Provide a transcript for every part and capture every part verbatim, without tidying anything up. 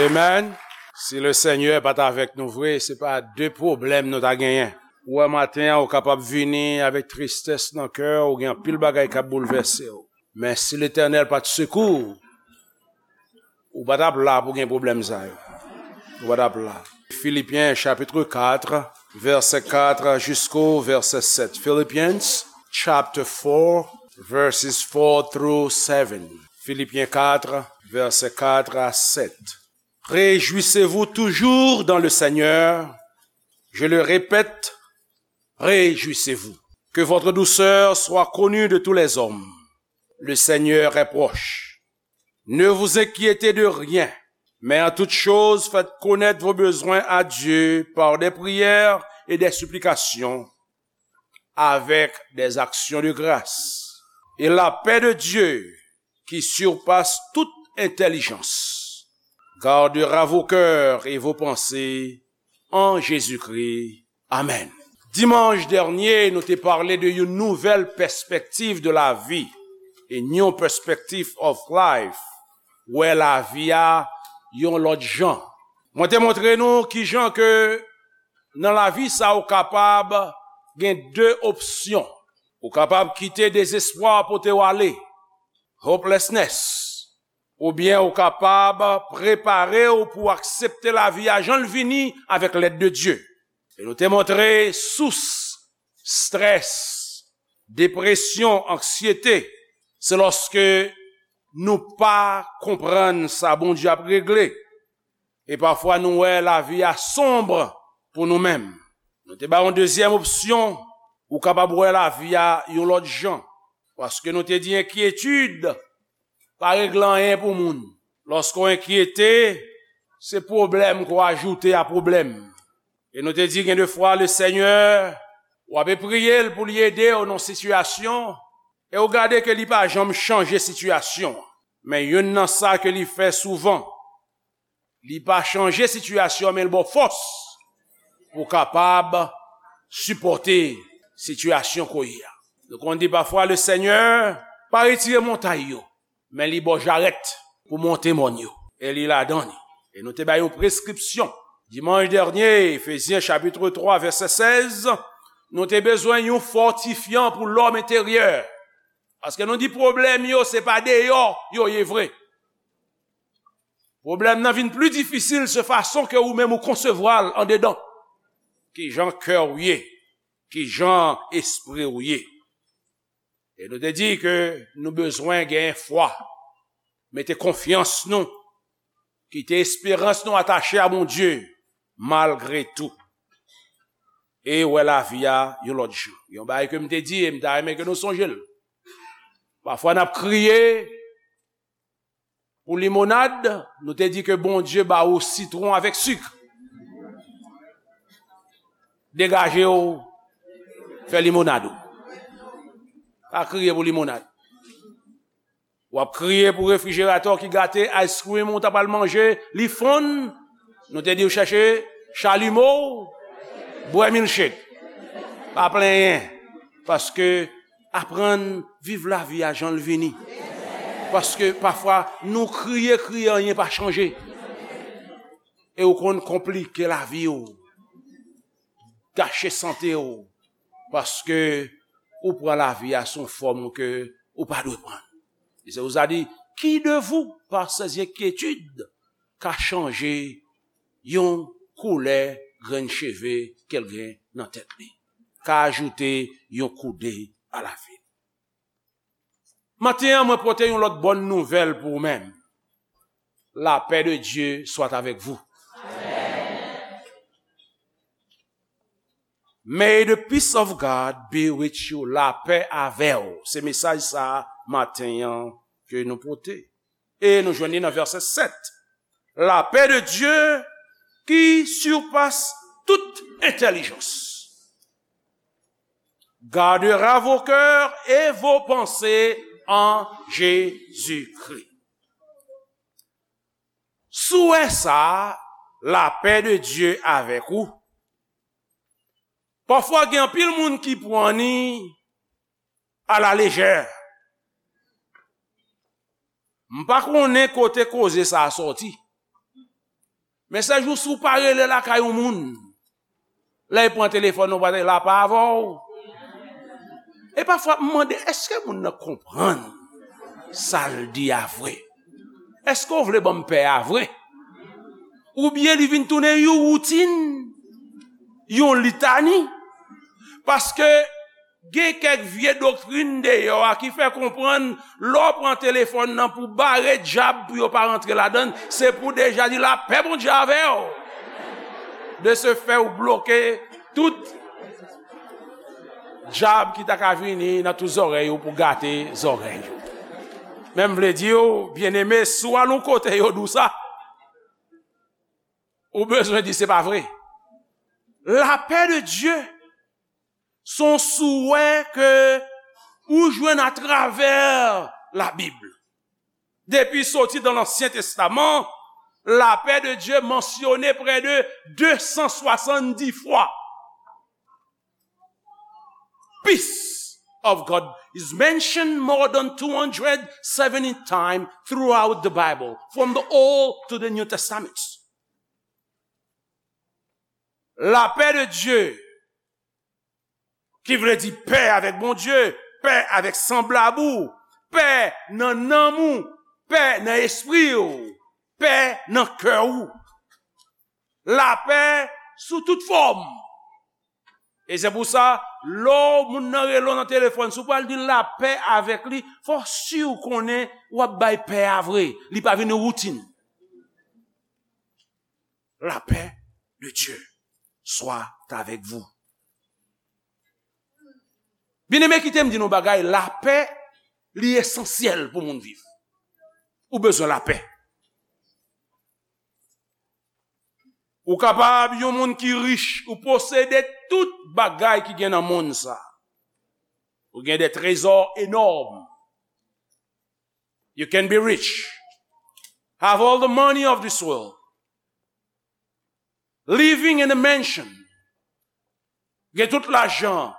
Amen. Si Lesenyè pa t avèk nou vre, se pa de pwoblèm nou ta genyen. Ou wè, maten an, ou kapab vini avèk tristès nan kè w, ou gen anpil bagay k ap boulvèse w. Men si Letènèl pa t sekou w, ou pa t ap la pou gen pwoblèm sa yo. Ou pa t ap la. Philippiens chapitre quatre, verset quatre jusqu'au verset sept. Philippians chapter four, verses four through seven. Philippiens quatre, verset quatre à sept. Réjouissez-vous toujours dans le Seigneur. Je le répète, réjouissez-vous. Que votre douceur soit connue de tous les hommes. Le Seigneur est proche. Ne vous inquiétez de rien, mais en toute chose faites connaître vos besoins à Dieu par des prières et des supplications, avec des actions de grâce. Et la paix de Dieu, qui surpasse toute intelligence, gardera vos cœurs et vos pensées en Jésus-Christ. Amen. Dimanch dènye, nou te pale de yon nouvèl pèspektiv de lavi, a new perspective of life, wè lavi a yon lòt jan. Mwen te montre nou kijan ke nan lavi sa ou kapab gen de opsyon. Ou kapab kite dezespwa pote w ale, hopelessness, oubyen ou kapab prepare w pou aksepte lavi a jan l vini avèk lèd de Dye. E nou te montre sous strès, depresyon, anksyete, se lòske nou pa konprann sa Bondye ap regle. E pafwa nou wè lavi a sonb pou nou menm. Nou te ba yon dezyèm opsyon, ou kapab wè lavi a yon lòt jan. Paske nou te di enkyetid pa regle anyen pou moun. Lòske w enkyete, se pwoblèm ke w ajoute a pwoblèm. E nou te di gen de fwa Lesenyè, w ape priye l pou li ede w nan sitiyasyon, e w gade ke li pa janm chanje sitiyasyon an. Men youn nan sa ke li fè souvan, li pa chanje sitiyasyon, men l ba w fòs pou w kapab sipòte sitiyasyon ke w ye a. Nou konn di pafwa Lesenyè pa retire montay yo, men li ba w jarèt pou monte mòn yo. E li ladan li. E nou te bay yon preskripsyon. Dimanch dènye, Efezyen chapitre twa, vèsè sèz, nou te bezwen yon fòtifyan pou lòm enteryè. Paske nou di pwoblèm yo, se pa deyò yo ye vre. Pwoblèm nan vin pli difisil se fason ke ou menm ou konsevwa l andedan. Kijan kè w ye, kijan espri w ye. E nou te di ke nou bezwen gen fwa, mete konfyans nou, kite esperans nou atache a Bondye, malgre tou. E wè lavi a yon lòt jan. Yon bagay ke m te di e m ta renmen ke nou sonje l. Pafwa n ap kriye pou limonad, nou te di ke Bondye ba ou sitwon avèk sik. Degaje w, fè limonad ou. Pa kriye pou limonad. W ap kriye pou refrijeratè w ki gate, ice cream ou ta pral manje, li fonn. Nou te di w chèche chalimo, bwè milkshake. Pa plenyen, paske aprann viv lavi a jan l vini. Paske pafwa, nou kriye, kriye, anyen pa chanje. E ou konn konplike lavi w, gache sante w, paske ou pran lavi a sou yon fòm ke ou pa dwe pran. E se pou sa di, qui de vous, par ses inquiétudes, ka chanje yon koulè grenn cheve ke l gen nan tèt li, ka ajoute yon koude a lavi l. Maten an, mwen pote yon lòt bòn nouvèl pou ou menm. La paix de Dieu soit avec vous. May the peace of God be with you. Lapè avè w. Se mesaj sa a maten an ke nou pote. E nou jwenn li nan vèsè sèt. La paix de Dieu qui surpasse toute intelligence gardera vos cœurs et vos pensées en Jésus-Christ. Si w wè sa, lapè de Dye avèk ou. Pafwa gen anpil moun ki pran ni a la lejè. M pa konnen kote koze sa a sòti. Men sèl jou si w pa rele lakay yon moun, lè l pran telefòn ou pa te la pa avè w. E pafwa m mande, èske moun nan konprann sa l di a vre? Èske w vle ban m pè a vre? Oubyen li vin tounen yon woutin, yon litani? Paske gen kèk vye doktrin deyò a ki fè konprann lè w pran telefòn nan pou bare dyab pou yo pa rantre ladan l, se pou deja di lapè Bondye avè w. De ce fait, ou bloke tout dyab ki ta ka vini nan tout zòrèy ou pou gate zòrèy ou. Men m vle di w, byeneme, si w al yon kote yo di w sa, ou bezwen di se pa vre. Lapè de Dye se yon souwè ke ou jwenn atravè Labib. Depi soti dan Lansyen Testaman, lapè de Dye mansyone prè de de san swasanndis fwa. Peace of God is mentioned more than two hundred seventy times throughout the Bible, from the Old to the New Testament. Lapè de Dye, ki vle di pè avèk Bondye, pè avèk sanblab ou, pè nan nanm ou, pè nan espri w, pè nan kè w. Lapè sou tout fòm. E se pou sa, lè w moun nan rele w nan telefòn, si w pral di lapè avèk li, fò w si w konnen w ap bay pè a vre. Li pa vin yon woutin. La paix de Dieu soit avec vous. Byeneme, kite m di nou bagay, lapè, li esansyèl pou moun viv. Ou bezwen lapè. Ou kapab yon moun ki rich, ou posede tout bagay ki gen nan monn sa. Ou gen de trezò enòm. You can be rich. Have all the money of this world. Living in a mansion. Gen tout lajan.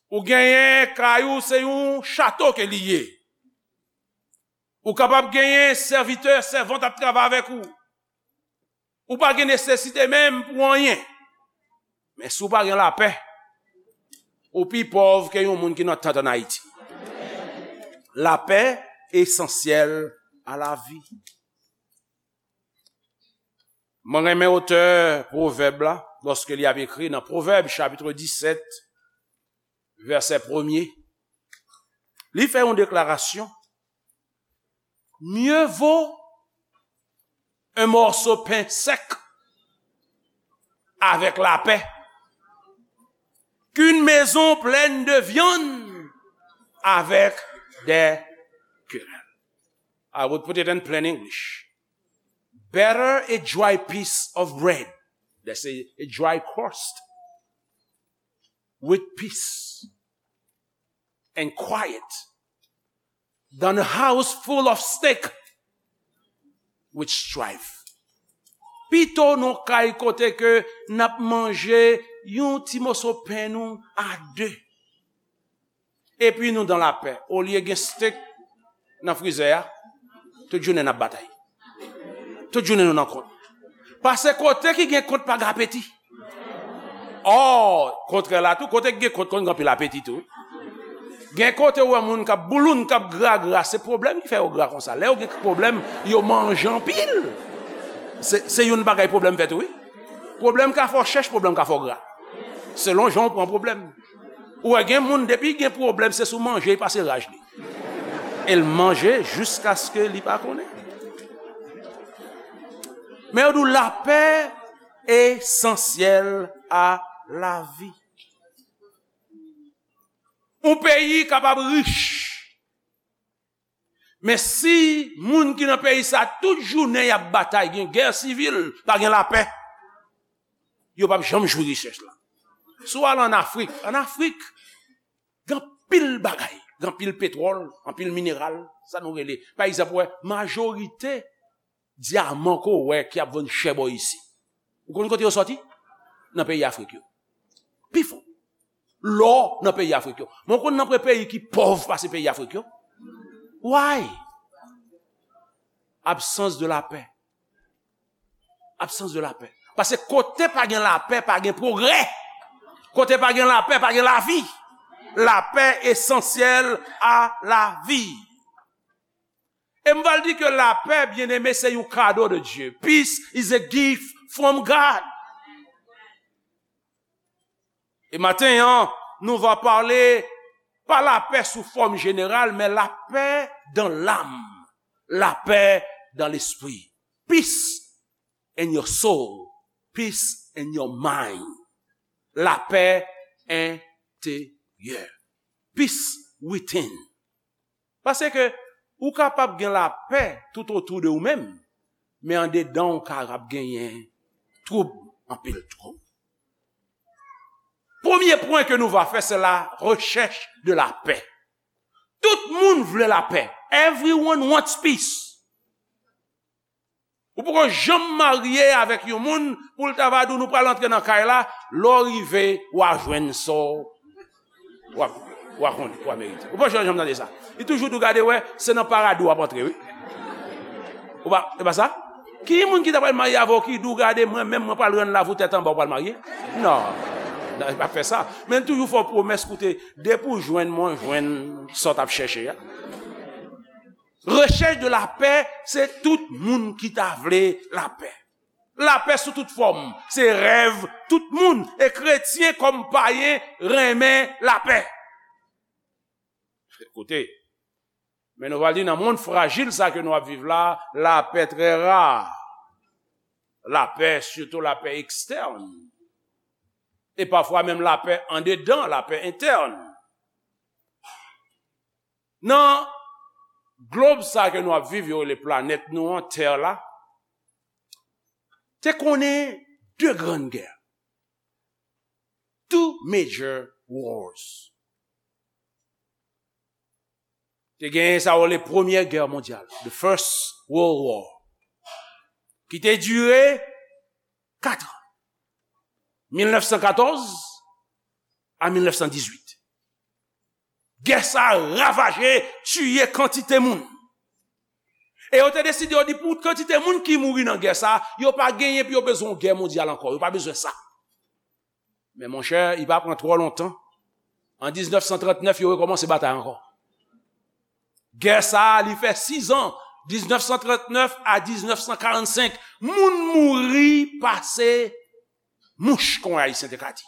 Ou genyen kay ou, se yon chato ke li ye. Ou kapab genyen sèvitè, sèvant ap travay avèk ou. Ou pa gen nesesite menm pou anyen. Men si w pa gen lapè, ou pi pòv ke yon moun ki nan tant ann Ayiti. La paix est essentielle à la vie. Mwen renmen otè Pwovèb la, lòske li ap ekri nan Pwovèb, chapit disèt, vèsè premye. Li fè yon deklarasyon. Mieux vaut un morceau pain sec avec la paix qu'une maison pleine de viande avec des querelles. I would put it in plain English. Better a dry piece of bread, that's a, a dry crust, with peace and quiet than a house full of stick with strife. Pito nou kay kote ke n ap manje yon ti moso pen nou a de. Epi nou dan lapè. Olye gen steak nan frizè a, tout jounen n ap batay. Tout jounen nou nan kont. Paske kote ki gen kont pa gen apeti. Ò, kontrè la tou, kote ki gen kont konn gen anpil apeti tou. Gen kote ou wè moun k ap bouloun, k ap gra gra, se pwoblèm ki fè yo gra konsa. Lè yo gen pwoblèm, yo manje anpil. Se, se youn bagay pwoblèm fè tou, wi. Pwoblèm ka fè w chèch, pwoblèm ka fè w gra. Selon jan w pran pwoblèm. Ou wè gen moun, depi gen pwoblèm, se sou manje li pase raj li. E l manje jiskaske li pa konnen. Men yo di w lapè esansyèl a lavi. Yon peyi kapab rich, men si moun ki nan peyi sa tout jounen y ap batay, gen gè sivil, pa gen lapè, yo p ap janm jwi richès la. Si w al ann Afrik, ann Afrik, gen anpil bagay, gen anpil petwòl, anpil mineral, sa nou rele. Pa egzanp, ou wè, majorite dyaman ke w wè ki ap vann chè bò isi. Ou konn kote yo sòti? Nan peyi Afrik yo. Pifò. Lò nan peyi Afrik yo. Men w konn nan pre peyi ki pòv pase peyi Afrik yo? Why? Absence de la paix. Absence de la paix. Paske kote pa gen lapè, pa gen pwogrè. Kote pa gen lapè, pa gen lavi. Lapè esansyèl a lavi. E m pral di ke lapè, byeneme, se yon kado de Dye. Peace is a gift from God. E maten an, nou va pale pa lapè sou fòm jeneral, men lapè dan lam, lapè dan lespri. Peace in your soul, peace in your mind. Lapè enteryè. Peace within. Paske ou kapab gen lapè tout otou de ou menm, men andedan ou kapab genyen twoub, anpil twoub. Premye pwen ke nou va fè, se la rechèch de lapè. Tout moun vle lapè. Everyone wants peace. Ou poko janm marye avèk yon moun pou l ta va di w nou pral antre nan kay la, lè w rive, w a jwenn sa w, w a, w a konnen, w a merite. Ou pa janm tande sa. Li toujou di w gade wè, se nan paradi w ap antre, wi. Ou pa, e pa sa? Ki moun ki ta pral marye avè w ki di w gade mwen menm mwen pral rann lavi w tèt anba w pral marye? Non. Non, li pa fè sa. Men l toujou fè w pwomès, koute, depi w jwenn mwen, w jwenn sa w t ap chèche a. Rechèch de lapè, se tout moun ki ta vle lapè. Lapè sou tout fòm, se rèv tout moun, e kretyen kòm payen renmen lapè. Koute, men nou pral di nan mond frajil sa ke nou ap viv la, lapè trè ra. Lapè, sitou lapè ekstèn. E pafwa menm lapè andedan, lapè entèn. Nan glob sa ke nou ap viv, yo rele planèt nou an, tè la, te konnen de grann gè. Two major wars. Te genyen sa yo rele Premyè Gè Mondyal, the First World War, ki te dire kat an, mil nèf san katòz a mil nèf san dizuit. Gè sa a ravaje, tiye kantite moun. E yo te deside, yo di pou kantite moun ki mouri nan gè sa a, yo pa genyen pou yo bezwen yon gè mondyal ankò, yo pa bezwen sa. Men monchè, li pa pran twò lontan. An diznèf san trantnèf, yo rekòmanse batay ankò. Gè sa a, li fè sis an, diznèf san trantnèf a diznèf san karannsenk. Moun mouri pase mouch, kon Ayisyen te ka di.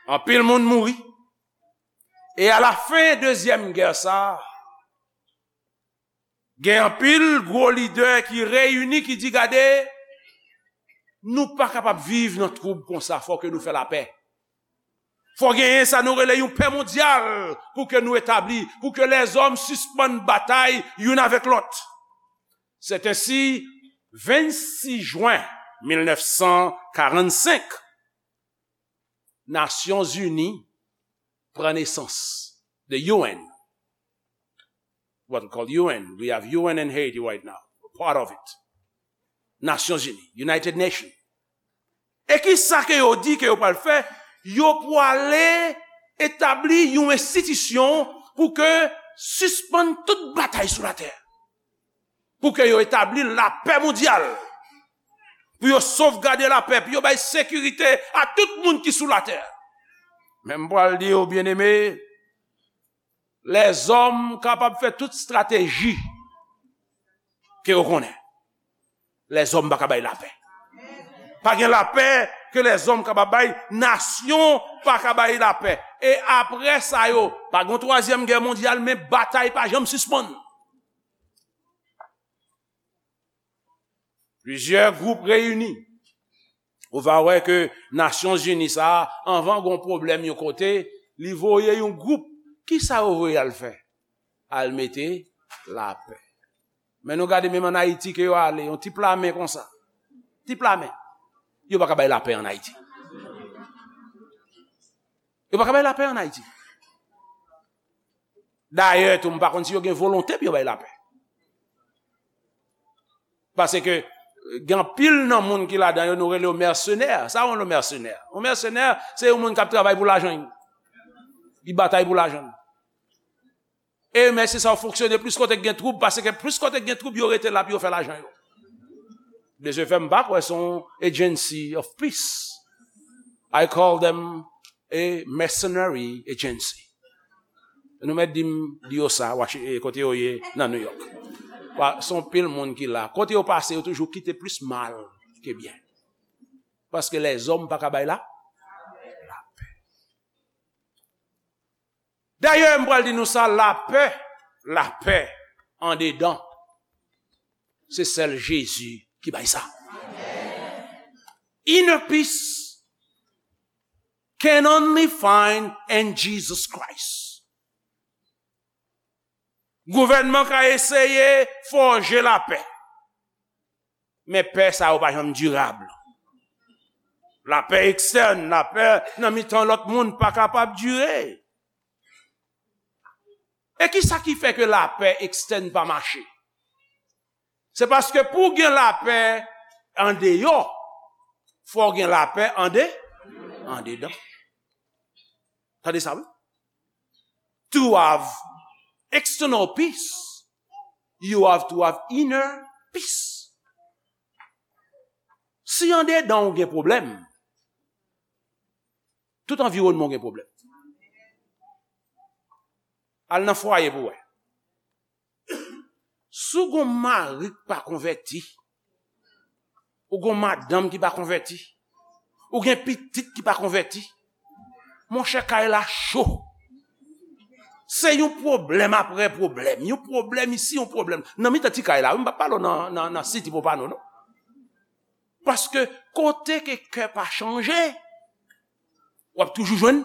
Anpil moun mouri. E alafen dezyèm gè sa a, gen anpil gwo lidè ki reyini, ki di, gade, nou pa kapab viv nan twoub konsa, fò ke nou fè lapè. Fò genyen sa nou rele yon pè mondyal pou ke nou etabli, pou ke lèzòm sispann batay youn avèk lòt. C'est ainsi, vennsis jen mil nèf san karannsenk, Nasyonzini pran nesans. The U N. What we call U N. We have U N in Haiti right now. Part of it. Nasyonzini, United Nations. E ki sa ke yo di ke yo pral fè? Yo pwale etabli yon enstitisyon pou ke sispann tout batay sou latè. Pou ke yo etabli lapè mondyal. Pou yo sovgade lapè, pou yo bay sekirite a tout moun ki sou latè. Men m pral di w, byeneme, lèzòm kapab fè tout estrateji ke yo konnen. Lèzòm pa ka bay lapè. Pa gen lapè ke lèzòm kapab bay, nasyon pa ka bay lapè. E apre sa yo, pa gen twazyèm gè mondyal, men batay pa janm sispann. Plizyè gwoup reyini. Ou va wè ke Nasyonzini sa a, anvan gon pwoblèm yon kote, li voye yon gwoup. Kisa yo voye al fè? Al mete lapè. Men nou gade menm ann Ayiti ke yo ale, yon ti plamen konsa. Ti plamen. Yo pa ka bay lapè ann Ayiti. Yo pa ka bay lapè ann Ayiti. Dayè tou, m pa konn si yo gen volonte pou yo bay lapè. Paske gen anpil nan moun ki ladan yo, nou rele yo mèsenè. Sa yon mèsenè? Yon mèsenè, se yon moun k ap travay pou lajan. Li batay pou lajan. E mèsi sa yo fonksyone plis kote k gen twoub, paske plis kote k gen twoub, yo rete la pou yo fè lajan yo. De ce fait, m pa kwè se yon agency of peace. I call them a mercenary agency. Nou mèt di m, di yo sa, Washi-, eh, kote yo ye nan New York. Pa, se yon pil moun ki la. Kote yo pase, yo toujou kite plis mal ke byen. Paske lèzòm pa ka bay la, lapè. Dayè, m pral di nou sa, lapè, lapè andedan, se sèl Jezi ki bay sa. Inner peace can only find in Jesus Christ. Gouvènman ka eseye fòje lapè. Men pè sa yo pa janm dirab. Lapè ekstèn, lapè nan mitan lòt moun pa kapab dire. E ki sa ki fè ke lapè ekstèn pa mache? Se paske pou w gen lapè andeyò, fò w gen lapè ande, andedan. Tande sa, wi. To have external peace, you have to have inner peace. Si andedan w gen pwoblèm, tout anviwònman w gen pwoblèm. Al nan fwaye pou w wè. Si w gon mari k pa konvèti, ou gon madanm ki pa konvèti, ou gen pitit ki pa konvèti, monchè, kay la cho. Se yon pwoblèm apre pwoblèm, yon pwoblèm isi, yon pwoblèm. Nan mitan ti kay la, wi, m pa pale w nan, nan, nan City Pompano, non. Paske kote ke kè pa chanje, w ap toujou jwenn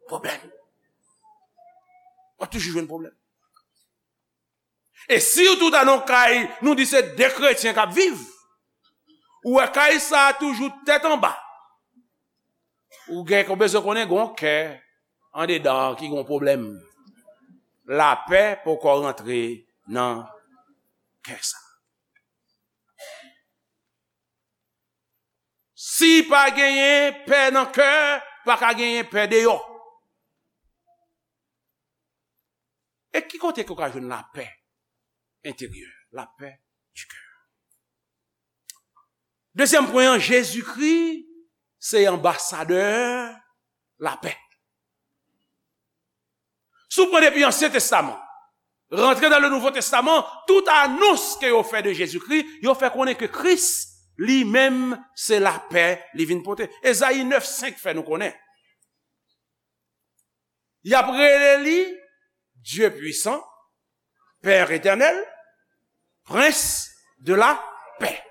pwoblèm. W ap toujou jwenn pwoblèm. E sitou ta nan kay, nou di se de kretyen k ap viv. Ou wè kay sa a toujou tèt anba. Ou gen, ou bezwen konnen gon kè andedan ki gon pwoblèm. Lapè poko rantre nan kè sa. Si pa genyen pè nan kè, pa ka genyen pè deyò. E ki kote ke w ka jwenn lapè enteryè, lapè di kè? Dezyèm pwen an, Jezikri se anbasadè lapè. Si w pran depi Ansyen Testaman, rantre nan le Nouvo Testaman, tout anons ke yo fè de Jezikri, yo fè konnen ke Kris li menm se lapè li vin pote. Ezayi nèf senk fè nou konnen. Y ap rele li Dieu puissant, Père éternel, Prince de la paix,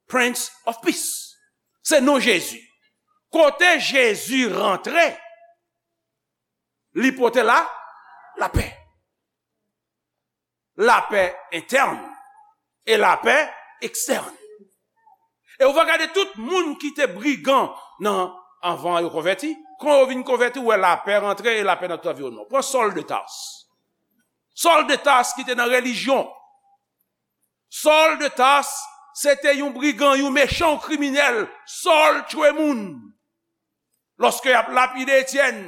Prince of Peace. Se non Jezi. Kote Jezi rantre, li pote la, lapè. Lapè entèn e lapè ekstèn. E ou va gade tout moun ki te brigan nan, anvan yo konvèti, kan yo vin konvèti, ou wè lapè rantre e lapè nan tout anviwònman. Pran Sòl de Tars. Sòl de Tars ki te nan relijyon. Sòl de Tars, se te yon brigan, yon mechan, yon kriminèl. Sòl tchwe moun. Lòske y ap lapide Etyèn,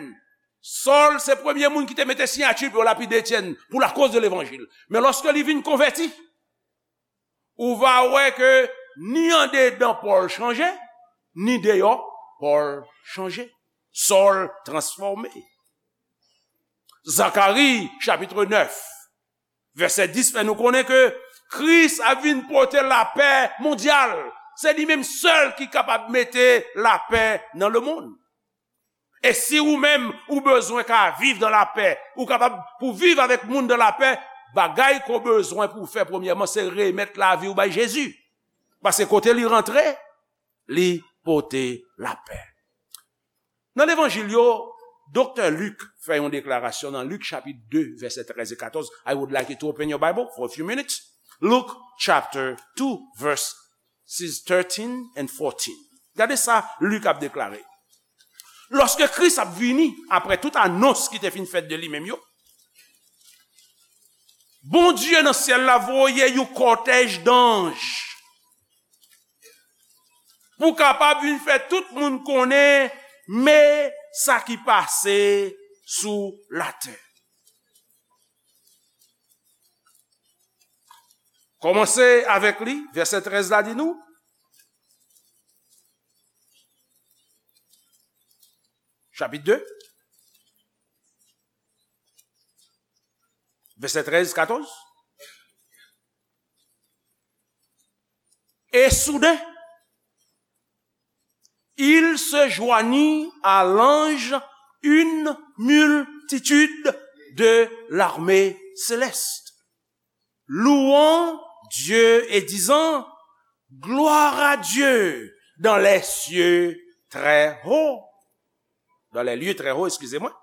Sòl se premye moun ki te mete siyati pou yo lapide Etyèn pou lakoz de levanjil. Men lòske li vin konvèti, ou va wè ke ni andedan Pòl chanje, ni deyò Pòl chanje. Sòl transfòme. Zakari, chapit nèf, vèsè dis fè nou konnen ke Kris ap vin pote lapè mondyal. Se li menm sèl ki kapab mete lapè nan lemonn. E si ou menm, ou bezwen ka viv dan lapè, ou kapab pou viv avèk moun dan lapè, bagay ke w bezwen pou w fè premyèman, se remèt lavi w bay Jezi. Paske kote li rantre, li pote lapè. Nan levanjil yo, Doktè Lik fè yon deklarasyon nan Lik chapit de, vèsè trèz e katòz. I would like you to open your Bible for a few minutes. Luke chapter two, verses thirteen and fourteen. Gade sa Lik ap deklare. Lòske Kris ap vini, apre tout anons ki te fin fèt de li menm yo, Bondye nan syèl la voye yon kòtèj danj pou kapab vin fè tout moun konnen men sa ki pase sou latè. Kòmanse avèk li, vèsè trèz la di nou, chapit de, vèsè trèz, katòz. Et soudain, il se joignit à l'ange une multitude de l'armée céleste, louant Dieu et disant, Gloire à Dieu dans les cieux très hauts, dans les lieux très hauts, excusez-moi,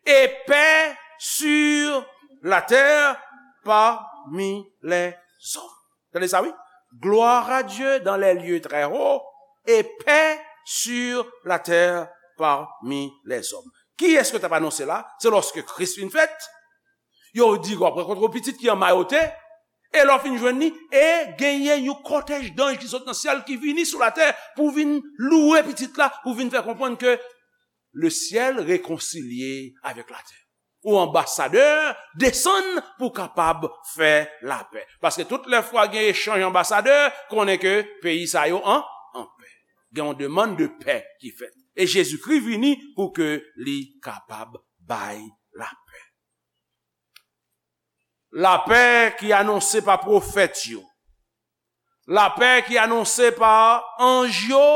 et paix sur la terre parmi les hommes. Tande sa, wi. Gloire à Dieu dans les lieux très hauts et paix sur la terre parmi les hommes. Kiyès ke t ap anonse la? Se lòske Kris vin fèt, yo di, w ap rankontre yon pitit ki an mayote, e lè w fin jwenn li, e genyen yon kòtèj danj ki sot nan syèl ki vini sou latè pou vin louwe pitit la, pou vin fè konprann ke le ciel réconcilié avec la terre. Ou anbasadè, desann pou kapab fè lapè. Paske tout lè fwa gen echanj anbasadè, konnen ke peyi sa yo an, an pè. Gen yon demann de pè ki fèt. E Jezikri vini pou ke li kapab bay lapè. Lapè ki anonse pa pwofèt yo, lapè ki anonse pa anj yo,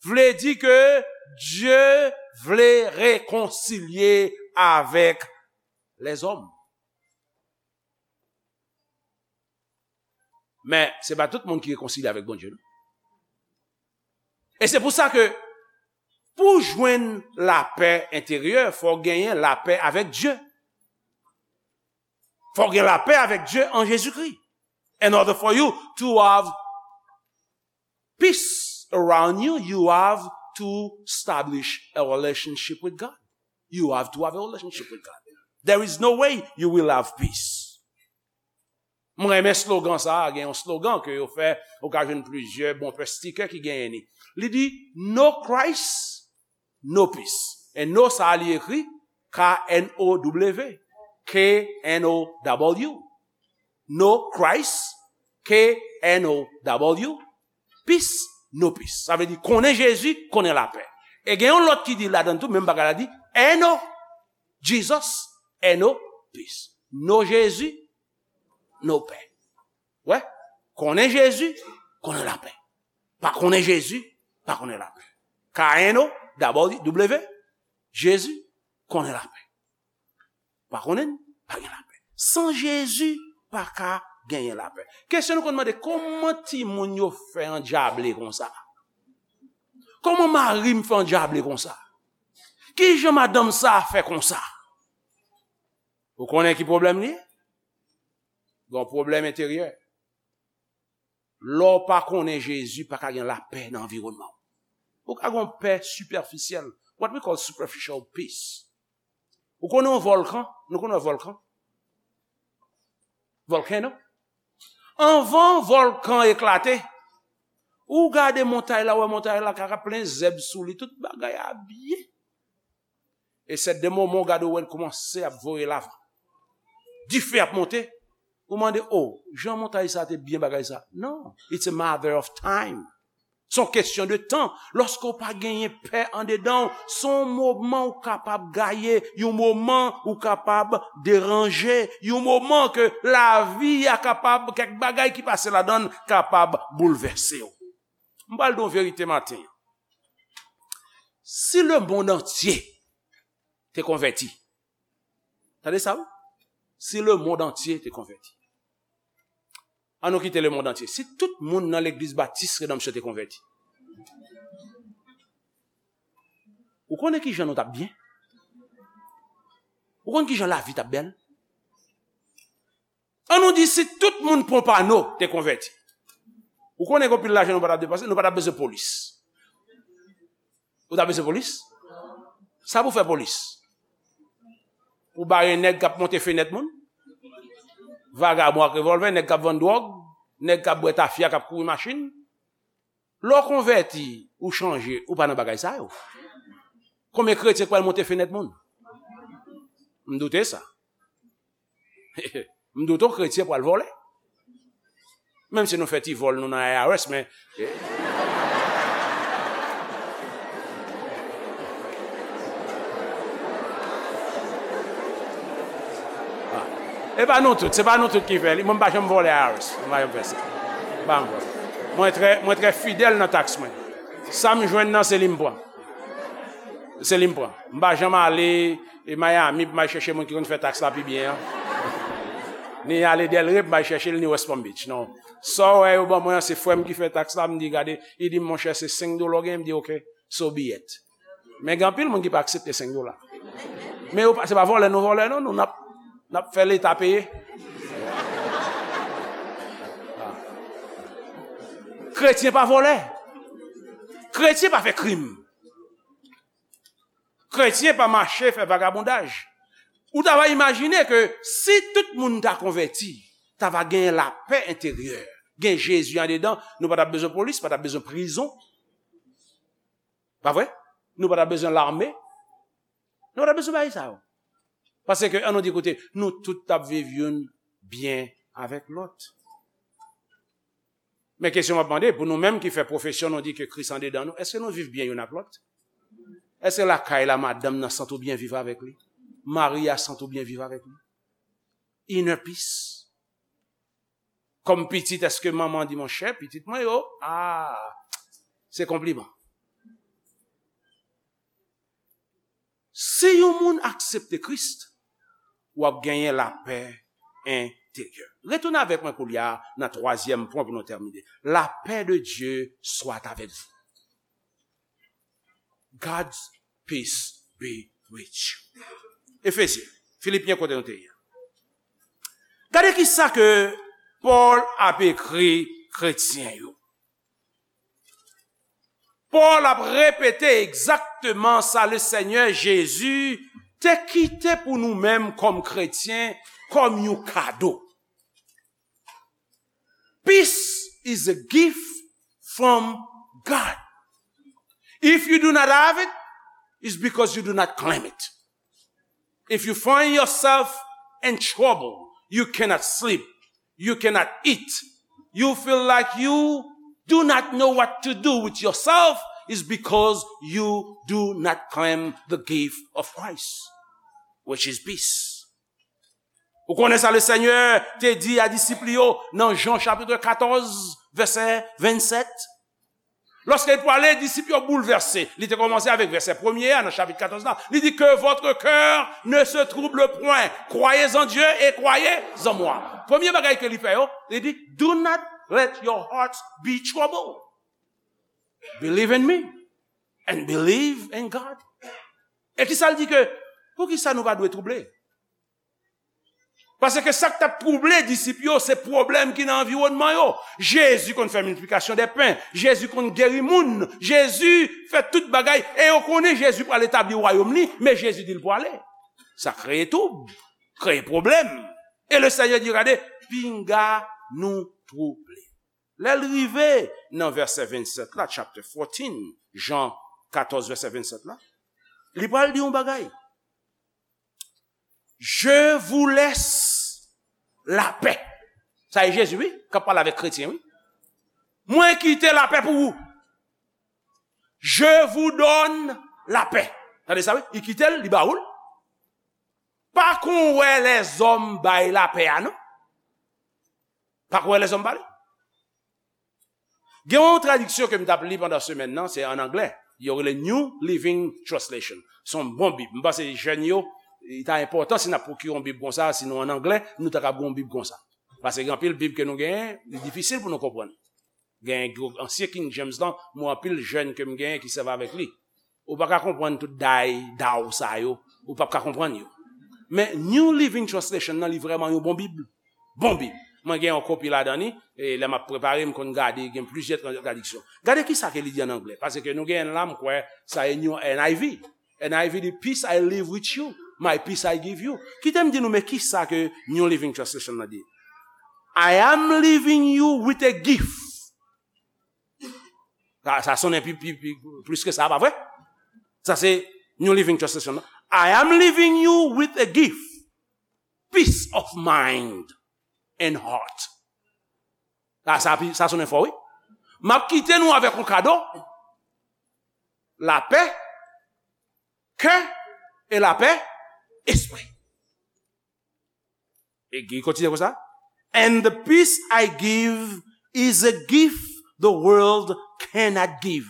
vle di ke Dye vle rekonsilye avèk lèzòm. Men, se pa tout moun ki rekonsilye avèk Bondye, non. E se pou sa ke, pou jwenn lapè enteryè, fò w genyen lapè avèk Dye. Fò w gen lapè avèk Dye an Jezikri. In order for you to have peace around you, you have to establish a relationship with God. You have to have a relationship with God. There is no way you will have peace. Mwen renmen slogan sa a, gen yon slogan ke yo fè, ou ka jwenn plizyè bon pè stikè ki genyen li. Li di, No Christ, no peace. E no sa a li ekri K N O W, K N O W. No Christ, K N O W, peace, no peace. Sa vle di konnen Jezi, konnen lapè. E gen yon lòt ki di ladan tou, menm bagay la di, N O Jesus, N O peace. No Jezi, no pè. Wè, konnen Jezi, konnen lapè. Pa konnen Jezi, pa konnen lapè. K N O W, Jezi, konnen lapè. Pa konnen, pa gen lapè. San Jezi, pa ka genyen lapè. Kesyon nou konn mande, kòman timoun yo fè andjable konsa? Kòman mari m fè andjable konsa? Kijan madanm sa a fè konsa? Ou konnen ki pwoblèm li ye? Gon pwoblèm enteryè. Lè w pa konnen Jezi, pa ka gen lapè nan anviwònman w. Ou ka gen yon pè sipèfisyèl, what we call superficial peace. Ou konnen yon vòlkan? Nou konnen yon vòlkan? Volcano? Anvan vòlkan eklate, ou gade montay la, ou wè montay la ka plen zèb sou li, tout bagay a byen. E sèt de moman w gade w wè l kòmanse ap voye lava. Dife ap monte. Ou mande, o, jan montay sa te byen bagay sa. Non, it's a matter of time. Se yon kesyon de tan. Lòske w pa genyen pè andedan w, se yon moman w kapab gaye, yon moman ou kapab deranje, yon moman ke lavi a kapab, kèk bagay ki pase ladan l kapab boulvèse w. M pral di w yon verite maten an. Si lemonn antye te konvèti, tande sa, wi. Si lemonn antye te konvèti. An nou kite lemonn antye. Si tout moun nan legliz batis Redanmsyon te konvèti. Ou konnen ki jan nou t ap byen? Ou konn ki jan lavi t ap bèl? An nou di si tout moun Pompano te konvèti. Ou konnen gen anpil lajan nou pa t ap depanse, nou pa t ap bezwen polis. Ou t ap bezwen polis? Sa pou fè polis? Pou bare nèg k ap monte fenèt moun? Vagabon ak revòlvè, nèg k ap vann dwòg, nèg k ap bwè tafya, k ap kouri machin. Lè w konvèti, ou chanje, ou pa nan bagay sa yo. Konbyen kretyen k pral monte fenèt moun? M doute sa. M doute yon kretyen pral vòlè. Menm si nou fè ti vòl nou nan I R S, men e pa nou tout, se pa nou tout ki fè li. Mwen, m pa janm vòlè I R S. Mwen pa janm fè sa. M pa janm vòlè. Mwen trè, mwen trè fidèl nan taks mwen. Sa m jwenn nan, se li m pran. Se li m pran. M pa janm ale e Miami pou m al chèche moun ki konn fè taks la pi byen an. Ni ale Delray pou m al chèche l, ni West Palm Beach. Non. Sa w wè yo ban mwen an, se frè m ki fè taks la, m di, "Gade," li di m, "Monchè, se senk dola w genyen?" M di, "Oke, so be it." Men gen anpil moun ki pa aksepte senk dola. Men yo pa, se pa vòlè nou vòlè, non, nou n ap, n ap fè Leta peye. Kretyen pa vòlè. Kretyen pa fè krim. Kretyen pa mache fè vagabondaj. Ou ta va imajine ke si tout moun ta konvèti, ta va gen lapè enteryè, gen Jezi andedan, nou pa t ap bezwen polis, pa t ap bezwen prizon. Pa vre? Nou pa t ap bezwen lame. Nou pa t ap bezwen bagay sa yo. Paske, ann nou di, koute, nou tout t ap viv youn byen avèk lòt. Men kesyon m ap mande, pou nou menm ki fè pwofesyon nou di ke Kris andedan nou, èske nou viv byen youn ak lòt? Èske lakay la, madanm nan santi w byen viv avèk li? Mari a santi w byen viv avèk li? Inner peace. Kòm pitit, èske manman di, "Monchè, pitit mwen yo, a, se konpliman"? Si yon moun aksepte Kris, w ap genyen lapè enteryè. Retounen avèk mwen koulye a nan twazyèm pwen pou nou tèmine. La paix de Dieu soit avec vous. God's peace be with you. Efesyen, Filipyen kote nou te ye. Gade ki sa ke Pòl ap ekri kretyen yo. Pòl ap repete egzakteman sa Lesenyè Jezi te kite pou nou menm kòm kretyen, kòm yon kado. Peace is a gift from God. If you do not have it, it's because you do not claim it. If you find yourself in trouble, you cannot sleep, you cannot eat, you feel like you do not know what to do with yourself, is because you do not claim the gift of Christ, which is peace. Ou konnen sa Lesenyè te di a disip li yo nan Jan chapit katòz, vèsè vennsèt? Lòske l prale, disip yo boulvèse. Li te kòmanse avèk vèsè premye a nan chapit katòz la. Li di, "Que votre cœur ne se trouble point. Croyez en Dieu et croyez en moi." Premye bagay ke li fè yo, li di, "Do not let your hearts be troubled. Believe in me and believe in God." E ki sa l di ke, pou ki sa nou pa dwe twouble? Paske sa k t ap twouble disip yo, se pwoblèm ki nan anviwònman yo. Jezi konn fè miltiplikasyon dè pen. Jezi konn geri moun. Jezi fè tout bagay. E yo konnen Jezi pral etabli wayòm li, men Jezi di l pwale. Sa kreye twoub, kreye pwoblèm. E Lesenyè di, "Gade, pinga nou twouble." Lè l rive nan vèsè vennsèt la, chapter fourteen, Jan katòz, vèsè vennsèt la, li pral di yon bagay. "Je vous laisse la paix." Sa e Jezi, wi, k ap pale avèk kretyen, wi. "Mwen kite lapè pou ou. Je vous donne la paix." Tande sa, wi. Li kite l, li ba ou l. Pa kon wè lèzòm bay lapè a, non. Pa kon wè lèzòm ba li. Gen yon tradiksyon ke m t ap li pandan semèn nan, se an anglè. Yo rele New Living Translation. Se yon bon Bib. M panse jèn yo, li ta enpòtan si n ap pwokire yon Bib konsa, si nou an anglè, nou ta kab gen yon Bib konsa. Paske gen anpil Bib ke nou genyen, li difisil pou nou konprann. Gen gwo ansyen King James lan, mwen anpil jèn ke m genyen ki sèvi avèk li. Ou pa ka konprann tout day, daw sa yo. Ou p ap ka konprann yo. Men New Living Translation nan, li vrèman yon bon Bib. Bon Bib. Mwen gen yon kopi ladan li, e lè m ap prepare, m konn gade, gen plizyè tra-, tradiksyon. Gade ki sa ke li di an anglè, paske nou gen la, m kwè, sa e New N I V. N I V di, "Peace I leave with you, my peace I give you." Kite m di nou, men ki sa ke New Living Translation nan di. "I am leaving you with a gift." Sa, sa sonnen pi, pi, pi, plis ke sa, pa vre? Sa se New Living Translation, non? "I am leaving you with a gift, peace of mind and heart." Sa, sa, sa sonnen fò, wi. M ap kite nou avèk yon kado. Lapè, kè, e lapè, espri. E li kontinye konsa. "And the peace I give is a gift the world cannot give.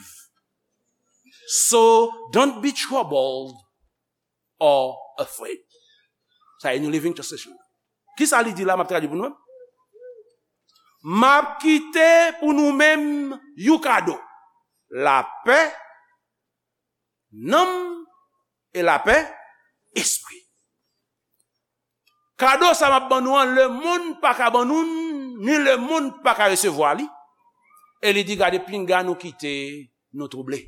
So don't be troubled or afraid." Sa e New Living Translation. Kisa li di la, m ap tradui pou nou menm? "M ap kite pou nou menm yon kado. Lapè nanm e lapè espri." Kado sa m ap ban nou an, lemonn pa ka ban nou, ni lemonn pa ka resevwa li. E li di, "Gade, pinga nou kite nou twouble."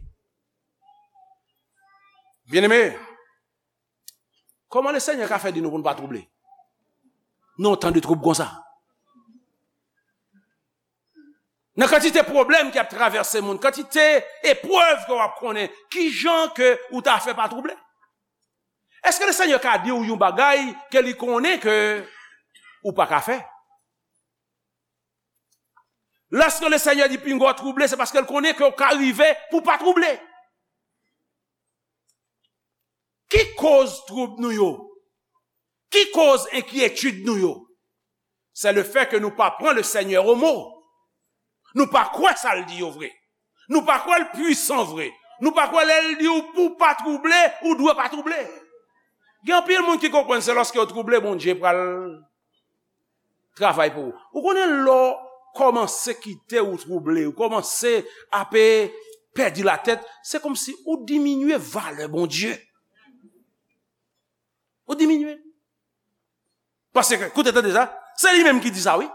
Byeneme, kòman Lesenyè ka fè di nou pou nou pa twouble? Nan yon tan de twoub konsa. Nan kantite pwoblèm ki ap travèse moun, kantite eprèv ke w ap konnen, kijan ke ou ta fè pa twouble? Èske Lesenyè ka di w yon bagay ke li konnen ke ou pa ka fè? Lèske Lesenyè di pinga w twouble, se paske l konnen ke w ka rive pou w pa twouble. Ki koz twoub nou yo? Ki koz enkyetid nou yo? C'est le fait que nou pa pran Lesenyè o mo. Nou pa kwè sa l di yo vre. Nou pa kwè l pwisan vre. Nou pa kwè lè l di w pou w pa twouble, ou dwe pa twouble. Gen anpil moun ki konprann se lòske yo twouble, Bondye pral travay pou ou. Ou konnen lè w kòmanse kite ou twouble, ou kòmanse ape pèdi latèt, se kòmsi ou diminye valè Bondye. Ou diminye. Paske, koute, tande sa, se li menm ki di sa, wi.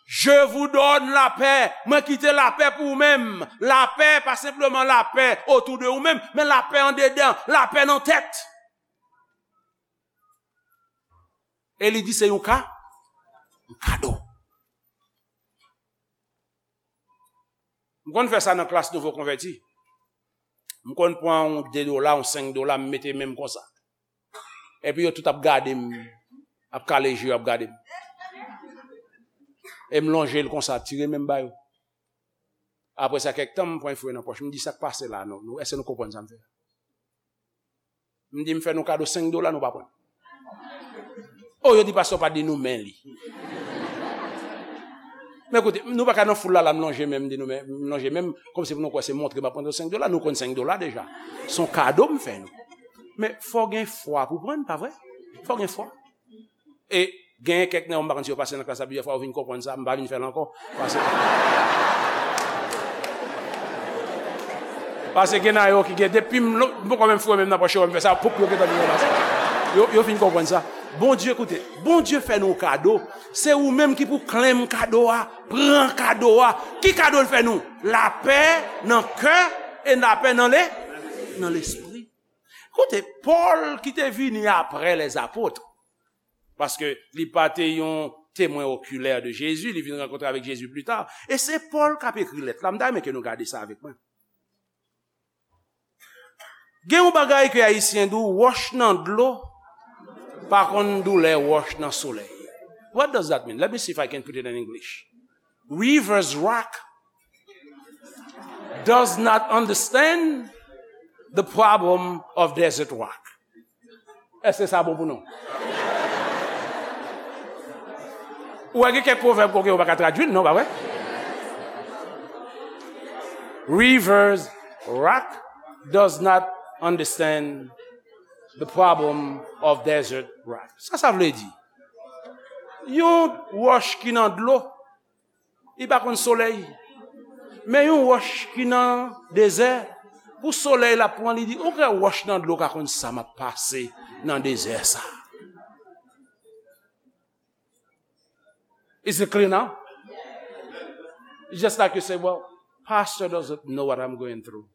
"Je vous donne la paix." Mwen kite lapè pou ou menm. Lapè, pa senpleman lapè otou de ou menm, men lapè andedan, lapè nan tèt. E li di se yon ka, yon kado. M konn fè sa nan klas nouvo konvèti. M konn pran yon de dola, yon senk dola, m mete men m konsa. Epi yo tout ap gade m, ap kale je yo ap gade m. E m lonje l konsa, tire men m ba yo. Apre sa, kèk tan, m pran yon fouye nan pòch. M di, "Sa k pase la, non? Nou, èske nou konprann sa m fè a?" M di, "M fè nou kado senk dola, nou pa pran." O, yo di, "Pastè pa di nou men li." Men koute, nou pa ka nan foul la, la, m lonje men m, m di nou men, m lonje men m, kòmsi pou nou kwè se montre m ap montre senk dola, nou konn senk dola deja. Se yon kado m fè nou. Men fò gen fwa pou pran, pa vre? Fò gen fwa. E genyen kèk nan yo, m pa konn si yo pase nan klas la plizyè fwa, yo vin konprann sa, m pa vin fè l ankò. Paske, paske gen nan yo ki gen, depi m lo-, m poko menm foure men m nan pòch yo, m fè sa, poup, yo gentan vin ranmase. Yo, yo fin konprann sa. Bondye, koute, Bondye fè nou kado. Se ou menm ki pou klenm kado a, pran kado a. Ki kado l fè nou? Lapè nan kè e lapè nan le, nan lespri. Koute, Pòl ki te vini apre lèzapot, paske li pa te yon temwen okilè de Jezi, li vin rankontre avèk Jezi pli ta. E se Pòl k ap ekri lèt la. M ta renmen ke nou gade sa avèk mwen. Gen yon bagay ke Ayisyen di w, wòch nan dlo pa konn doulè wòch nan solèy. What does that mean? Let me see if I can put it in English. River's rock does not understand the problem of desert rock. Èske sa bon pou nou? Ou wè gen kèk pwovèb kote yo pa ka tradui l, non, pa vre? Rivers rock does not understand the problem of desert rock. Sa sa vle di? Yon wòch ki nan dlo, li pa konn solèy. Men yon wòch ki nan dezè, pou solèy la pran li, di, "Ou kwè wòch nan dlo ka konn sa m ap pase nan dezè sa?" Is it clear now? It's just like you say, "Well, pastor doesn't know what I'm going through."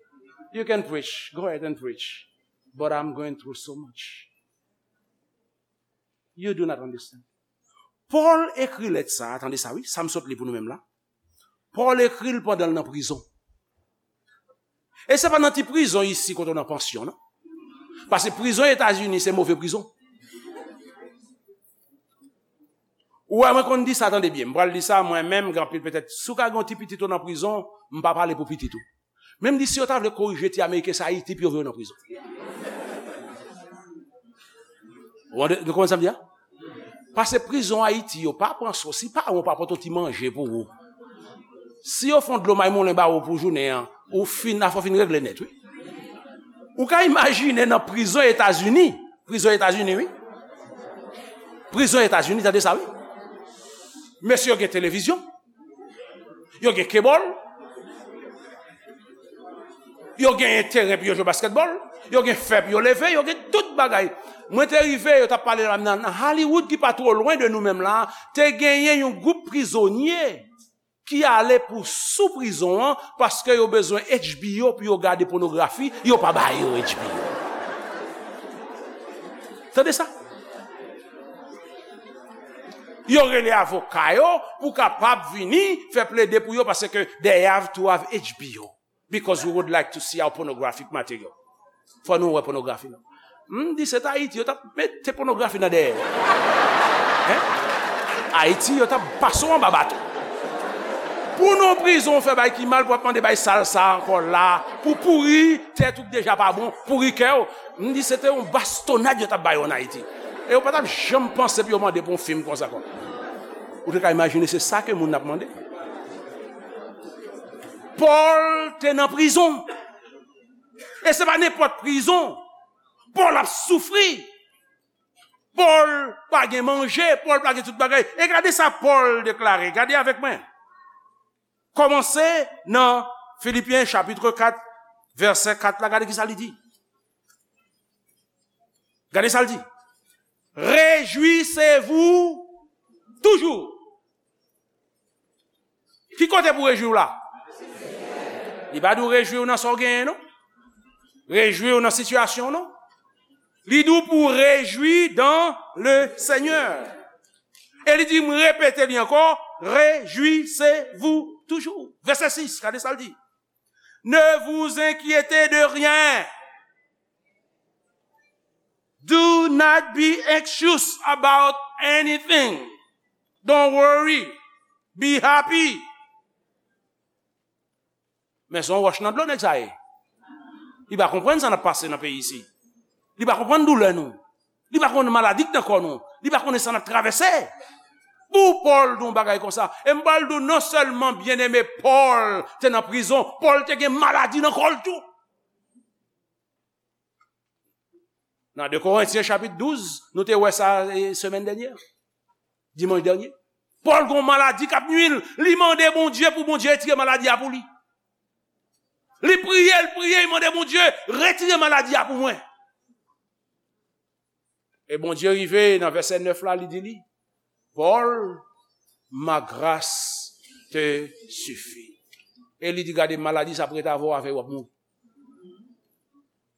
You can preach, go ahead and preach. But I'm going through so much. You do not understand. Pòl ekri lèt sa a, tande sa wi, sa m sot li pou nou menm la. Pòl ekri l pandan l nan prizon. E se pa nan ti prizon isi kote w nan pansyon, non. Paske prizon Etazini se move prizon. Ou wè, mwen konn di sa, tande byen. M pral di sa, mwen menm, gen anpil petèt. Si w ka gen yon ti pitit ou nan prizon, m pa pale pou pitit ou. Men m di, si yo ta vle korije ti Ameriken sa Ayiti, pou yo voye yo nan prizon. Ou ande, nou konprann sa m di a? Pase prizon Ayiti, yo pa pran sou. Si paran w pa pote yon ti manje pou ou, si yo fè yon dlo may moulen ba ou pou jounen an, ou fin, afè w fin regle nèt, wi. Ou ka imajine nan prizon Etazini. Prizon Etazini, wi. Prizon Etazini, tande sa, wi. Mesye yo gen televizyon. Yo gen kebòl. Yo gen teren pou yo jwe baskètbòl. Yo gen fè pou yo leve. Yo gen tout bagay. Mwen te rive, yo t ap pale la nan, nan Hollywood ki pa twò lwen de nou menm la, te genyen yon gwoup prizonye ki ale pou sou prizon an paske yo bezwen H B O pou yo gade pònografi, yo pa ba yo H B O. Tande sa? Yo rele avoka yo pou kapab vini fè plede pou yo paske they have to have H B O. Because we would like to see our pornographic material. Fò nou wè pònografi nou. M di se t Ayiti, yo t ap mete pònografi nan dèyè. Hein? Ayiti, yo t ap pase w anba baton. Pou nou prizon, w fè bay ki mal, pou ap mande bay sal sa ankò la, pou pouri tèt ou k deja pa bon, pouri kè w. M di se te yon bastonnad yo t ap ba yo an Ayiti. E yo pa t ap janm panse pou yo mande pou yon fim konsa kon. Ou te ka imajine se sa ke moun ap mande. Pòl te nan prizon. E se pa nenpòt prizon. Pòl ap soufri. Pòl pa gen manje, Pòl pa gen tout bagay. E gade sa Pòl deklare. Gade avèk mwen. Kòmanse nan Filipyen chapit kat, vèsè kat la, gade ki sa li di. Gade sa l di. Réjouissez-vous toujours. Ki kote pou rejwi w la? Li pa di w rejwi w nan sa w genyen, non. Rejwi w nan sitiyasyon w, non. Li di w pou rejwi dans le Seigneur. E li di, m repete li ankò, réjouissez-vous toujours. Vèsè sis, gade sa l di. Ne vous inquiétez de rien. Do not be anxious about anything. Don't worry. Be happy. Men se yon wòch nan dlo nèg sa ye. Li pa konprann sa n ap pase nan peyi isi. Li pa konprann doulè nou. Li pa konn maladi k nan kò nou. Li pa konnen sa n ap travèse. Pou Pòl di yon bagay konsa. E m pral di w non sèlman byeneme Pòl te nan prizon, Pòl te gen maladi nan kò l tou. Nan de Korentyen chapit douz, nou te wè sa e, semèn dènyè, dimanch dènyè. Pòl gen yon maladi k ap nui l. Li mande Bondye pou Bondye retire maladi a pou li. Li priye, li priye, li mande Bondye, retire maladi a pou mwen. E Bondye rive nan vèsè nèf la, li di li, Paul, ma grâce te suffit. E li di, gade, maladi sa ap ret avè w, avè w w ap mouri.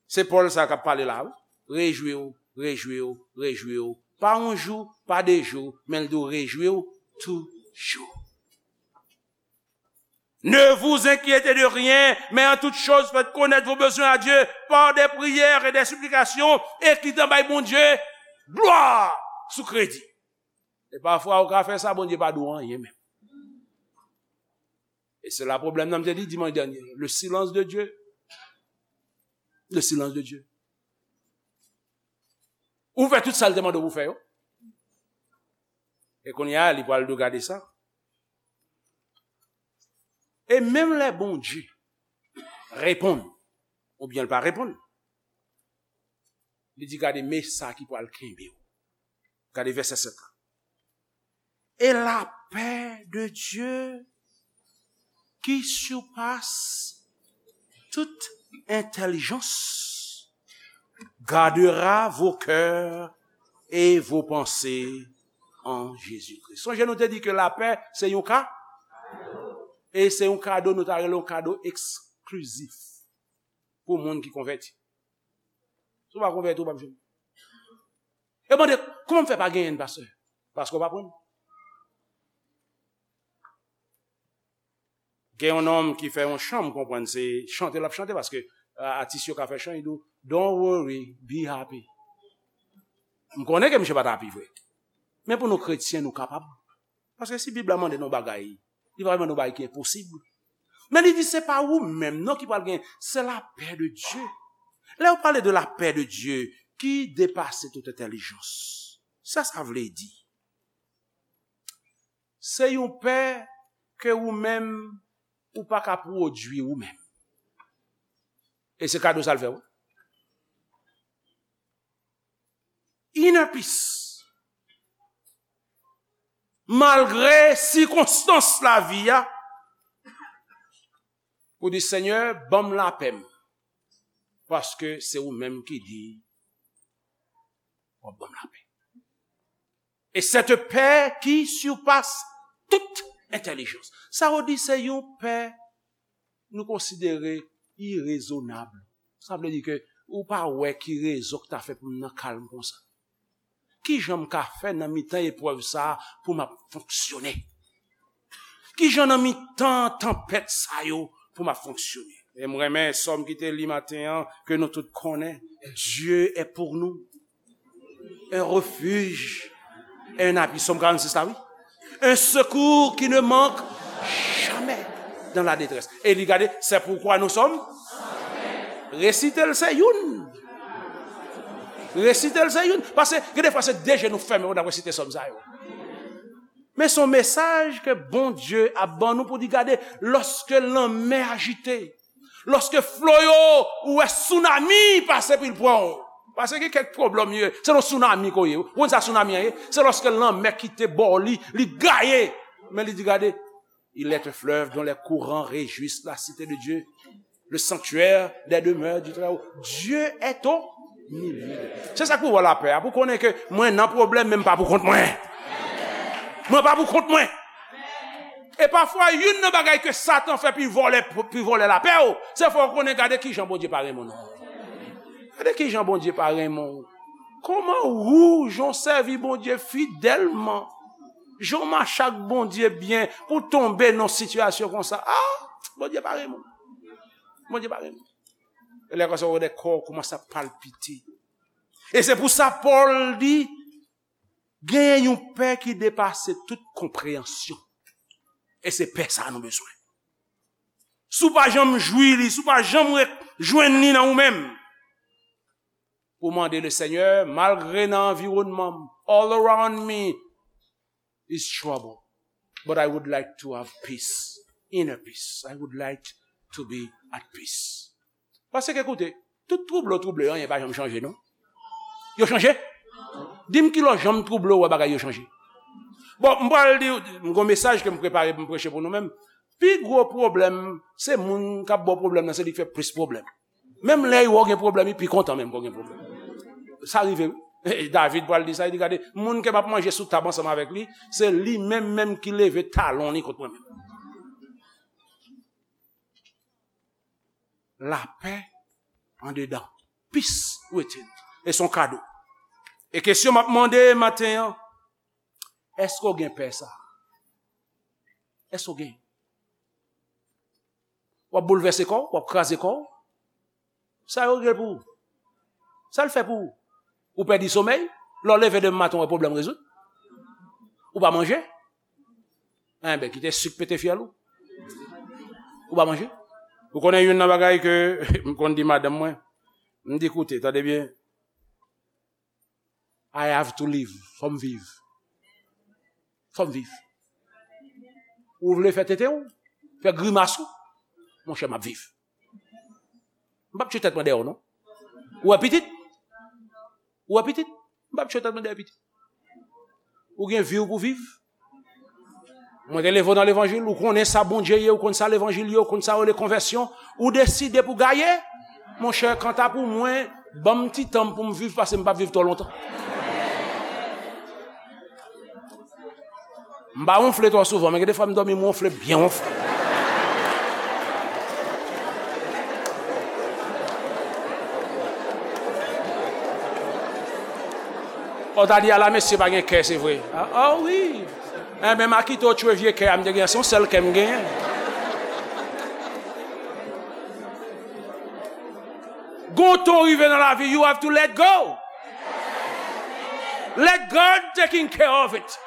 Se Pòl sa k ap pale la, wi. Rejwi w, rejwi w, rejwi w. Pa yon jou, pa de jou, men l di w rejwi w toujou. Ne vous inquiétez de rien, mais en toute chose faites connaître vos besoins à Dieu par des prières et des supplications, e ki tan bay Bondye glwa sou kredi. E pafwa ou ka fè sa, Bondye pa di w anyen menm. E se la pwoblèm nan m te di dimanch dènye. Le silence de Dieu. Le silence de Dieu. Ou fè tout sa l te mande w pou fè yo. E kounye a, li pral di w gade sa. E menm lè Bondye reponn, oubyen l pa reponn, li di, gade, men sa ki pral kenbe w. Gade vèsè sèt la. Et la paix de Dieu qui surpasse toute intelligence gardera vos cœurs et vos pensées en Jésus-Christ. Sonje nou te di ke lapè se yon ka, e se yon kado nou ta rele yon kado eksklizif pou moun ki konvèti. Si w pa konvèti, w p ap jwenn. E mande, kòman m fè pa genyen l, pastè? Paske w pa pran l. Gen yon nonm ki fè yon chan, m konprann se chante l ap chante, paske, a, atis yo ka fè chan, li di w, don't worry, be happy. M konnen ke misye pa t happy vre. Men pou nou kretyen, nou kapab Paske si Bib la mande nou bagay, li pa mande nou bagay ki enposib. Men li di se pa ou menm non ki pral gen, se lapè de Dye. Lè yo pale de lapè de Dye ki depase tout entèlijans, sa sa vle di? Se yon pè ke ou menm ou pa ka pwodui ou menm. E se kado sa l fè w. Inner peace. Malgre sikonstans lavi a, ou di Senyè, ban m lapè m. Paske se ou menm ki di w ap ban m lapè. Et cette paix qui surpasse toute intelligence. Sa yo di se yon pè nou konsidere irezonab. Sa vle di ke ou pa wè ki rezon ki ta fè pou m nan kalm konsa. Ki jan m ka fè nan mitan eprèv sa a pou m ap fonksyone? Ki jan nan mitan tanpèt sa yo pou m ap fonksyone? E m renmen sòm ki te li maten an, ke nou tout konnen, Dieu est pour nous un refuge et un appui. Sòm karannsis la, wi. Un secours qui ne manque jamais dans la détresse. E li gade, c'est pourquoi nous sommes. Resite l se youn. Resite l se youn. Paske gen de fwa se de je nou fèmen, nou ap resite sòm sa yo. Men se yon mesaj ke Bondye ap ban nou pou di gade, lòske lanmè ajite, lòske flo yo, ou wè tsunami pase pou l pran w. Paske gen kèk pwoblèm yo, se nan tsunami ke w ye. Ou konn sa tsunami an ye? Se lòske lanmè kite bò li, li gaye. Men li di gade, il est un fleuve dont les courants réjouissent la cité de Dieu, le sanctuaire des demeures du Très-Haut. Dieu est au milieu. Se sa k pou ba w lapè a, pou konnen ke mwen nan pwoblèm, men m pa pou kont mwen. Mwen pa pou kont mwen. E pafwa, youn nan bagay ke Satan fè pou l vòlè, pou l vòlè lapè w, se fè w konnen gade ki jan Bondye pa renmen w non. Gade ki jan Bondye pa renmen w. Kòman ou, jan w sèvi Bondye fidèlman, jan w mache ak Bondye byen, pou w tonbe nan sitiyasyon konsa? Ah, Bondye pa renmen w. Bondye pa renmen w. E lè konsa, ou wè kò w kòmanse ap palpite. E se pou sa Pòl di, genyen yon pè ki depase tout konpreyansyon. E se pè sa a nou bezwen. Si w pa janm jwi li, si w pa janm re-, jwenn li nan ou menm, pou mande le Seigneur, malgre nan anviwònman m, all around me is trouble, but I would like to have peace, inner peace. I would like to be at peace. Paske, koute, tout twouble w twouble yo, anyen pa janm chanje, non. Yo chanje? Di m ki lè w janm twouble w wè bagay yo chanje. Bon, m pral di, m gon mesaj ke m prepare pou m preche pou nou menm. Pi gwo pwoblèm, se moun k ap ba w pwoblèm nan, se li k fè plis pwoblèm. Menm lè yo gen pwoblèm, li pi kontan menm ke w gen pwoblèm. Sa rive, wi. David pral di sa, li di, gade, moun ke m ap manje sou tab ansanm avèk li, se li menm menm ki leve talon li kont mwen menm. Lapè andedan. Peace within. E se yon kado. E kesyon m ap mande maten an, èske w gen pè sa? Èske w gen? W ap boulvèse kò w, w ap kraze kò w. Sa yo regle pou ou? Sa l fè pou ou? Ou pèdi somèy? Lè w leve demen maten, w wè pwoblèm rezoud? Ou pa manje? Enben, kite sik pete fyèl ou. Ou pa manje? Ou konnen youn nan bagay ke m konn di madanm mwen? M di, koute, tande byen. I have to live. Fò m viv. Fò m viv. Ou vle fè tete w, fè grimas ou, monchè, m ap viv. M p ap tchwe tèt mwen dèyè w, non. Ou wè pitit? Ou wè pitit? M p ap tchwe tèt mwen dèyè pitit. Ou gen vi w pou viv. Mwen te leve w nan levanjil, ou konnen sa Bondye ye, ou konn sa levanjil ye, ou konn sa yo rele konvèsyon, ou deside pou gaye. Monchè, kanta pou mwen, ban m ti tan m pou m viv, paske m p ap viv twò lontan. M pa wonfle twò souvan, men gen de fwa m dòmi, m wonfle byen wonfle. Ou ta di, ala mesye pa gen kè, se vre. Ah, ah wi. Enben, m a kite w tchwe vye kè a m te genyen, se yon sèl kè m genyen. Gon tan w rive nan lavi, you have to let go. Let God taking care of it.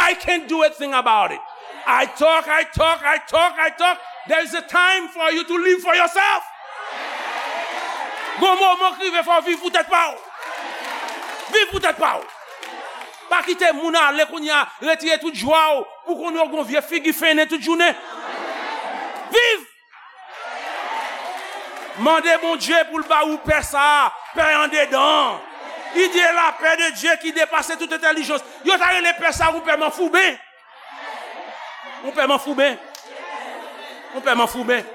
I can't do a thing about it. I talk, I talk, I talk, I talk. There is a time for you to live for yourself. Gon moman k rive fò w viv pou tèt pa w. Viv pou tèt pa w. Pa kite moun ale kounye a, retire tout jwa w, pou kounye a w gon vye figi fennen tout jounen. Viv! Mande Bondye pou l ba ou pè sa a, pè andedan an. Il dit la paix de Dieu qui dépasse toute intelligence. Yo ta rele pè sa a yon pè manfouben. Yon pè manfouben. Yon pè manfouben.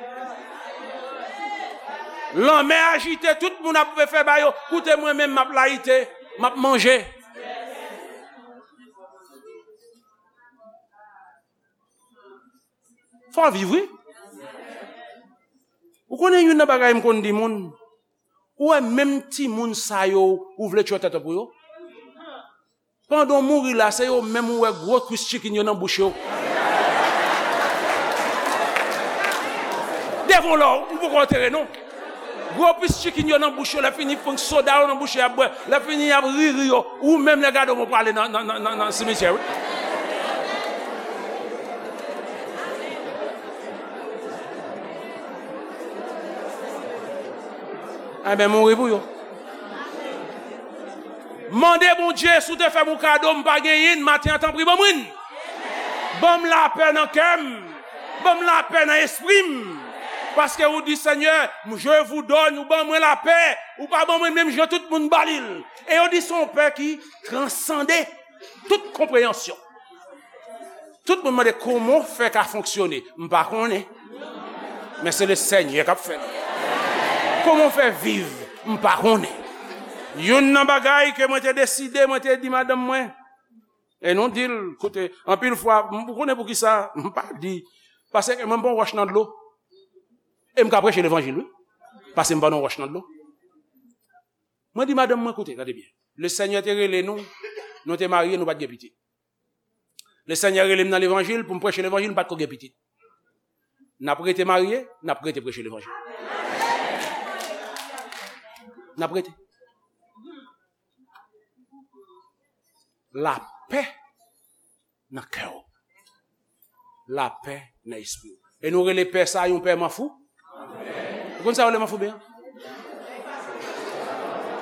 Lanmè ajite, tout moun ap fè ba yo. Koute mwen menm, m ap layite, m ap manje. Fò w viv, wi. Ou konnen youn nan bagay m konn di moun, ou wè menm timoun sa yo, ou vle tchwè tèt ou pou yo? Pandan w mouri la, se yo menm ou wè gwo kwis chicken yo nan bouch yo. Devan w la, ou poko antere non. Gwo kwis chicken yo nan bouch yo, lè fini, fon soda yo nan bouch yo, y ap bwè. Lè fini, y ap ri, ri yo. Ou menm, lè gade w, ou prale nan, nan, nan, nan, nan simityè, wi. Enben, mouri pou yo. Mande Bondye, si w te fè m yon kado, m pa genyen n, maten an, tanpri, ban mwen n. Ban m lapè nan kè m. Ban m lapè nan espri m. Paske ou di, Senyè, je vous donne, ou ban mwen lapè. Ou pa ban mwen menm jan tout moun ba li l. E yo di se yon pè ki transande tout konpreyansyon. Tout moun mande kòman w fè ka fonksyone. M pa konnen. Men se le Senyè k ap fè l. Kòman w fè viv? M pa konnen. Youn nan bagay ke mwen te deside, mwen te di madanm mwen, e nou di l, koute, anpil fwa, m, ou konnen poukisa m pa di, paske mwen m pa yon wòch nan dlo. E m ka preche levanjil, wi. Paske m pa yon wòch nan dlo. Mwen di madanm mwen, koute, gade byen. Le Senyè te rele nou, nou te marye, nou pa t gen pitit. Le Senyè rele m nan levanjil pou m preche levanjil, m pa t ko gen pitit. N ap rete marye, n ap rete preche levanjil. N ap rete. Lapè nan kè w. Lapè nan espri w. E nou rele pè sa a yon pè manfou? Ou konn sa yo rele manfouben an?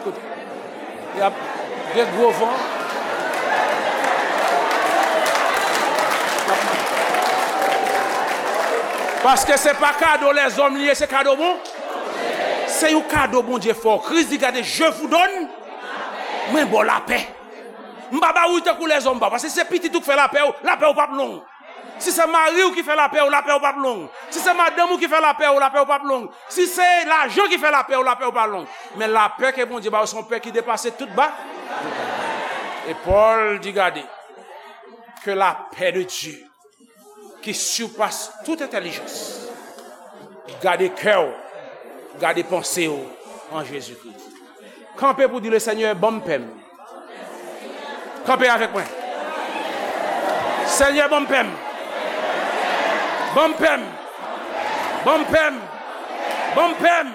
Koute. Y ap gen gwo van. Paske se pa kado lèzòm li ye, se kado bon. Se yon kado Bondye fè w. Kris di, gade, je vous donne, mwen ba w lapè. M pa ba ou tankou lèzòm ba w, paske se pitit ou k fè lapè w, lapè w p ap long. Si se mari w ki fè lapè w, lapè w p ap long. Si se madanm ou ki fè lapè w, lapè w p ap long. Si se lajan ki fè lapè w, lapè w p ap long. Men lapè ke Bondye ba w, se yon pè ki depase tout ba. E Pòl di, gade, que la paix de Dieu qui surpasse toute intelligence, gade kè w, gade panse w an Jezikri. Kanpe pou di, le Senyè, ban m pè m. Kanpe avèk mwen. Senyè, ban m pè m. Ban m pè m. Ban m pè m. Ban m pè m.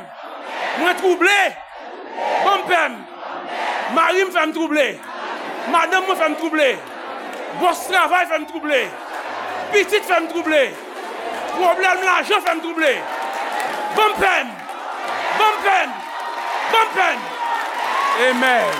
Mwen twouble. Ban m pè m. Mari m fè m twouble. Madanm mwen fè m twouble. Bòs travay fè m twouble. Pitit fè m twouble. Pwoblèm lajan fè m twouble. Ban m pè m. Ban m pè m. Ban m pè m. Amen.